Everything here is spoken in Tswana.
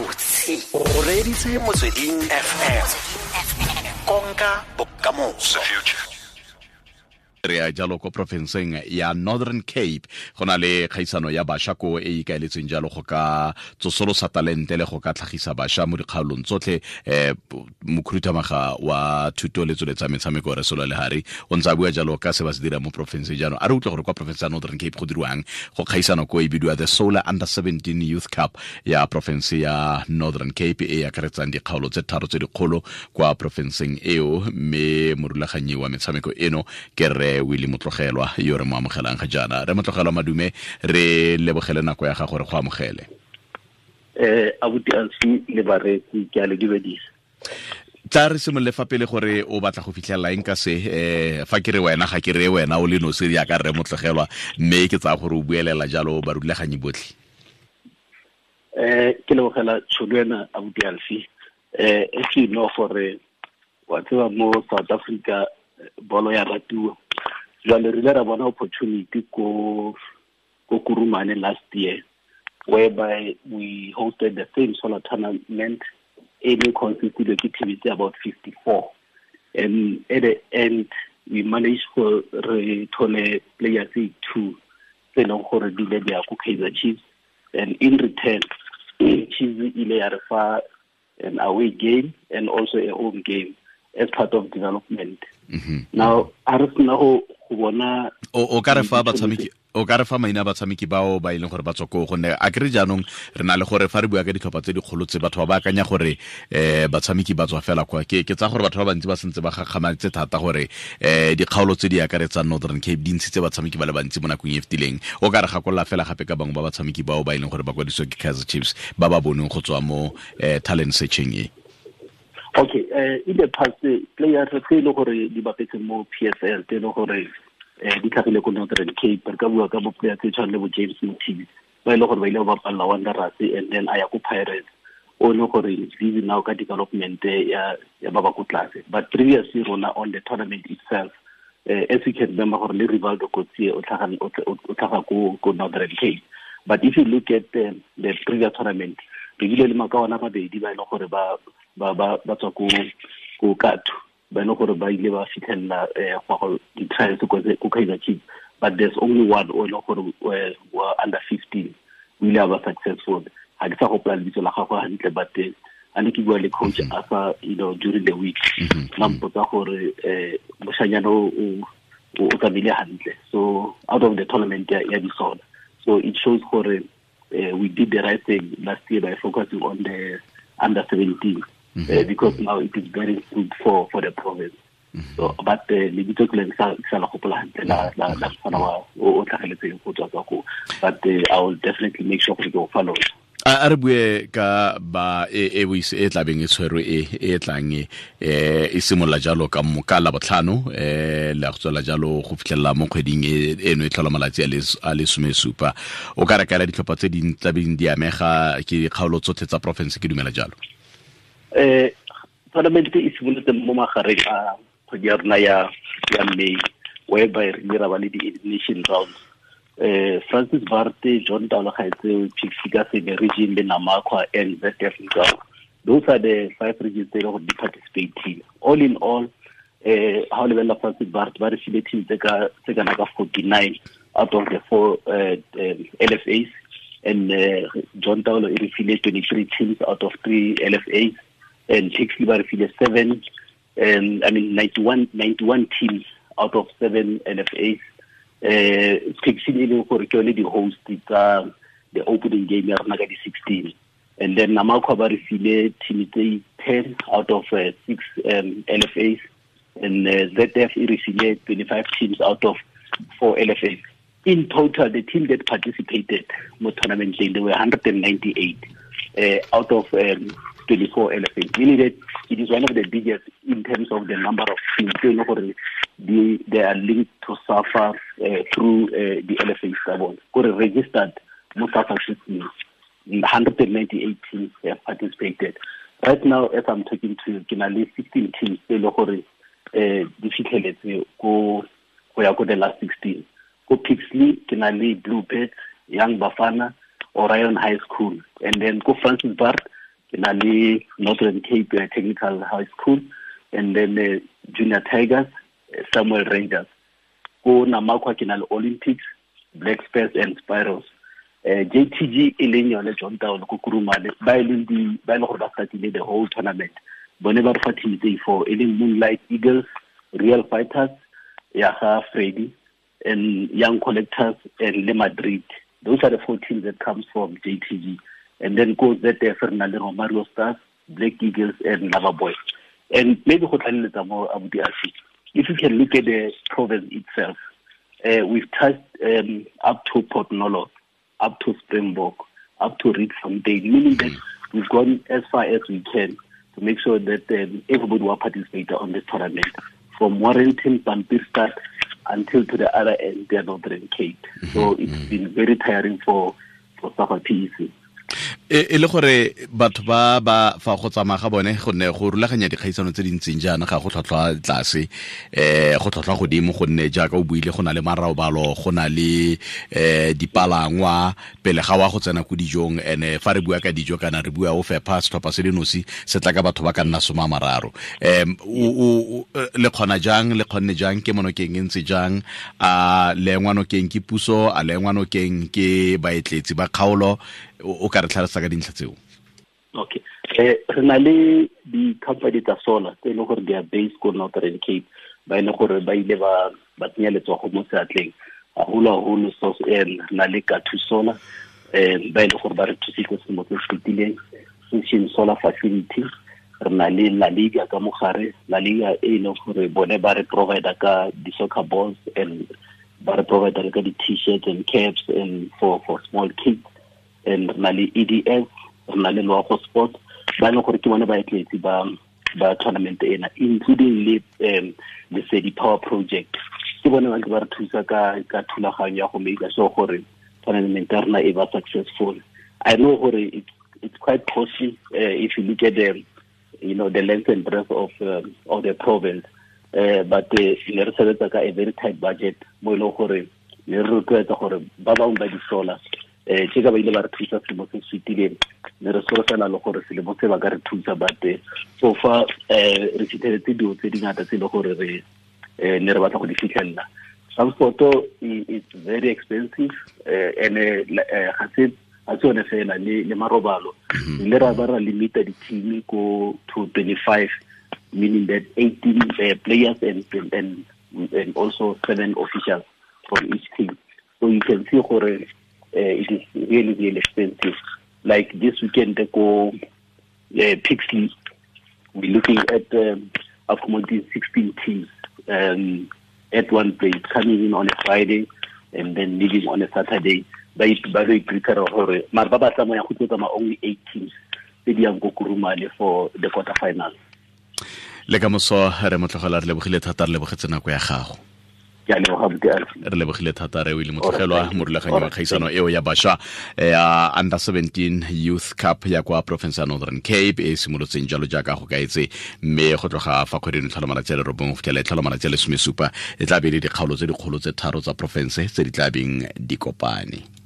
Gabotse o reeditse Motsweding FM, konka bokamoso. Re ya jalo ko porofenseng ya Northern Cape, go na le kgaisano ya bašwa ko e ikaeletsweng jalo go ka tsosolosa talente le go ka tlhagisa bašwa mo dikgaolong tsotlhe. Mokhuduthamaga wa thuto le tsweletsa metshameko, re Solo Lehari, o ntse a bua jalo ka se ba se dira mo porofenseng. Jaanong a re utlwe gore kwa porofense ya Northern Cape go dirwang go kgaisano ko e bidiwa the Solar Under 17 Youth Cup ya porofense ya Northern Cape, e akaretsang dikgaolo tse tharo tse dikgolo kwa porofenseng eo, mme morulaganyi wa metshameko eno ke re Willie Motlogelwa, yo re mo amogelang ga jaana. Re Motlogelwa, madume, re lebogele nako ya gago, re go amogele. Abuti Alfi le bareetsi, ke a le dumedisa. Tla re simolole fa pele gore o batla go fitlhelela eng ka se. Fa ke re wena, ga ke re wena o le nosi jaaka rre Motlogelwa, mme ke tsaya gore o buelela jalo barulaganyi botlhe. Ke lebogela tšhono ena, abuti Alfi. As you know gore wa tseba mo South Africa bolo ya ratiwa, jwale re ile ra bona opportunity ko Kurumane last year, whereby we hosted the same solar tournament e ne consisted ke team tse about 54, and at the end we managed go re thole players tse two tse e leng gore di ile di ya ko Kaizer Chiefs, and in return Chiefs ile ya re fa an away game and also a home game as part of development. Now a re sena go bona O ka re fa batshameki, o ka re fa maina a batshameki bao ba e leng gore ba tswa koo? Gonne a kere jaanong re na le gore fa re bua ka ditlhopha tse dikgolo tse, batho ba ba akanya gore batshameki ba tswa fela kwa. Ke tsa gore batho ba bantsi ba sentse ba gakgamaditse thata gore dikgaolo tse di akaretsang Northern Cape di ntshitse batshameki ba le bantsi mo nakong e fetileng. O ka re gakolola fela gape ka bangwe ba batshameki bao ba e leng gore ba kwadisiwa ke Kaizer Chiefs, ba ba boneng go tswa mo talent searching e? Okay, in the past, players tse e le gore di bapetse mo PSL, tse e le gore di tlhagile ko Northern Cape, re ka bua ka bo player tse tshwana le bo James Mothibi, ba e le gore ba ile ba bapalla Wanderers and then a ya ko Pirates, o le gore is busy now ka development ya ba ba ko tlase. But previously rona on the tournament itself, as you can remember gore le Rivaldo Coetzee o tlhaga ko Northern Cape. But if you look at the previous tournament, re bile le makawana mabedi ba e leng gore ba tswa ko Kathu, ba e leng gore ba ile ba fitlhelela go go di-trials ko Kaizer Chiefs, but there's only one o e leng gore wa under 15 o ile a ba successful. Ga ke sa gopola lebitso la gagwe hantle, but a ne ke bua le coach asa during the week, la mpotsa gore moshanyana o tsamaile hantle. So out of the tournament ya disola, so it shows gore we did the right thing last year by focusing on the under 17, because now it is bearing fruit for the province. So but lebitso ke le sa la gopola hantle la mfana wa o tlhageletseng go tswa kwa ko, but I will definitely make sure gore ke o fa lona. A re bue ka ba e e e tlabeng e tshwerwe e tlang e simolola jalo ka ka la botlhano, le go tswela jalo go fitlhelela mo kgweding eno e tlhola malatsi a le 17. O ka re kaela ditlhopha tse di tlabeng di amega ke dikgaolo tsotlhe tsa porofense, ke dumela jalo? Tournament e simolotse mo magareng a kgwedi ya rona ya May, whereby re ile ra ba le di-elimination rounds. Francis Baard, John Taolo Gaetsewe, Pixley ka Seme region le Namakwa and ZF Mgcawu, those are the five regions tse e leng gore di participate. All in all, ha o lebelela Francis Baard, ba re file team tse kana ka 49 out of the four LFAs, and John Taolo e re file 23 teams out of three LFAs, and Pixley ba re file seven, I mean 91 teams out of seven LFAs. Pixley e leng gore ke yone di-host tsa the opening game ya rona ka di-16, and then Namakwa ba re file team tse 10 out of six LFAs, and ZF e re file 25 teams out of four LFAs. In total, the team that participated mo tournament, there were 198 out of 24 LFAs, meaning that it is one of the biggest in terms of the number of teams tse e leng gore they are linked to SAFA through the LFAs tsa bone, kore registered mo SAFA system. 198 teams have participated. Right now, as I'm talking to you, ke na le 16 teams tse e leng gore di fitlheletse ko go ya ko the last 16. Ko Pixley ke na le Blue Birds, Young Bafana, Orion High School, and then ko Francis Baard Ke na le Northern Cape Technical High School, and then Junior Tigers, Samuel Rangers. Ko Namakwa ke na le Olympics, Black Spurs and Spirals. JTG e leng yone John Taolo ko Kurumane, ba e leng di ba e leng gore ba startile the whole tournament. Bone ba re fa team tse four, e leng Moonlight Eagles, Real Fighters ya ga Freddy, and Young Collectors, and Le Madrid. Those are the four teams that comes from JTG. And then go ZF, re na le Romario Stars, Black Eagles, and Lava Boys. And maybe go tlaleletsa mo abuti Alfie, if you can look at the province itself, we've touched up to Port Nolloth, up to Springbok, up to Rietfontein, meaning that we've gone as far as we can to make sure that everybody will participate on this tournament, from Warrenton, Pampierstad, until to the other end, the Northern Cape. So it's been very tiring for SAFA PEC. E le gore batho ba ba fa go tsamaya ga bone, gonne go rulaganya dikgaisano tse dintseng jaana ga go tlhwatlhwa tlase, go tlhwatlhwa godimo, gonne jaaka o buile go na le marobalo, go na le dipalangwa pele ga wa go tsena ko dijong. Ene fa re bua ka dijo kana re bua o fepha setlhopha se le nosi se tla ka batho ba ka nna 30. Le kgona jang, le kgonne jang, ke monokeng e ntse jang, a le engwanokeng ke puso, a le engwanokeng ke baetletsi ba kgaolo? O ka re tlhalosa ka dintlha tseo? Okay. Re na le di-company tsa solar tse e leng gore they are based ko Northern Cape, ba e leng gore ba ile ba tsenya letsogo mo seatleng haholo-haholo. So re na le Kathu Solar, ba e leng gore ba re thusitse selemo se se fetileng, Session Solar Facility. Re na le La Liga ka mogare, La Liga e leng gore bone ba re provide ka di-soccer balls and ba re provide le ka di-t-shirts and caps and for small kids. And re na le EDS, re na le Loago Sport, ba e leng gore ke bone baetletsi ba tournament ena, including le Lesedi Power Project. Ke bone ba ntse ba re thusa ka thulaganyo ya go make sure gore tournament ya rona e ba successful. I know gore it's quite costly if you look at the, you know, the length and breadth of the province, but ne re sebetsa ka a very tight budget mo e leng gore ne re rotloetsa gore ba bangwe ba di-solar, tse ka ba ile ba re thusa selemo se se fetileng, ne re solofela le gore selemo se ba ka re thusa, but so far re fitlheletse dilo tse dingata tse e le gore re ne re batla go di fitlhelela. Transport is very expensive, and ga se yone fela, le marobalo. Le ra ba ra limita di-team ko to 25, meaning that 18 players and also 7 officials from each team. So you can see gore it is really, really expensive. Like this weekend, they go Pixley. We're looking at accommodating 16 teams at one place, coming in on a Friday and then leaving on a Saturday. By prepare gore mara ba ba tsamaya go tsamaya only 8 teams tse di yang ko Kurumane for the quarterfinal. Le ka moso re motlogela, re lebogile thata, re lebogetse nako ya gago. Re lebogile thata re o ile motlogelwa morulaganyi wa kgaisano eo ya bašwa ya Under 17 Youth Cup ya kwa province ya Northern Cape e simolotseng jalo jaaka go kaetse, mme go tloga fa kgweding tlhola malatsi a le 9 go fitlhela e tlhola malatsi a le 17, e tla be le dikgaolo tse dikgolo tse 3 tsa province tse di tla beng di kopane.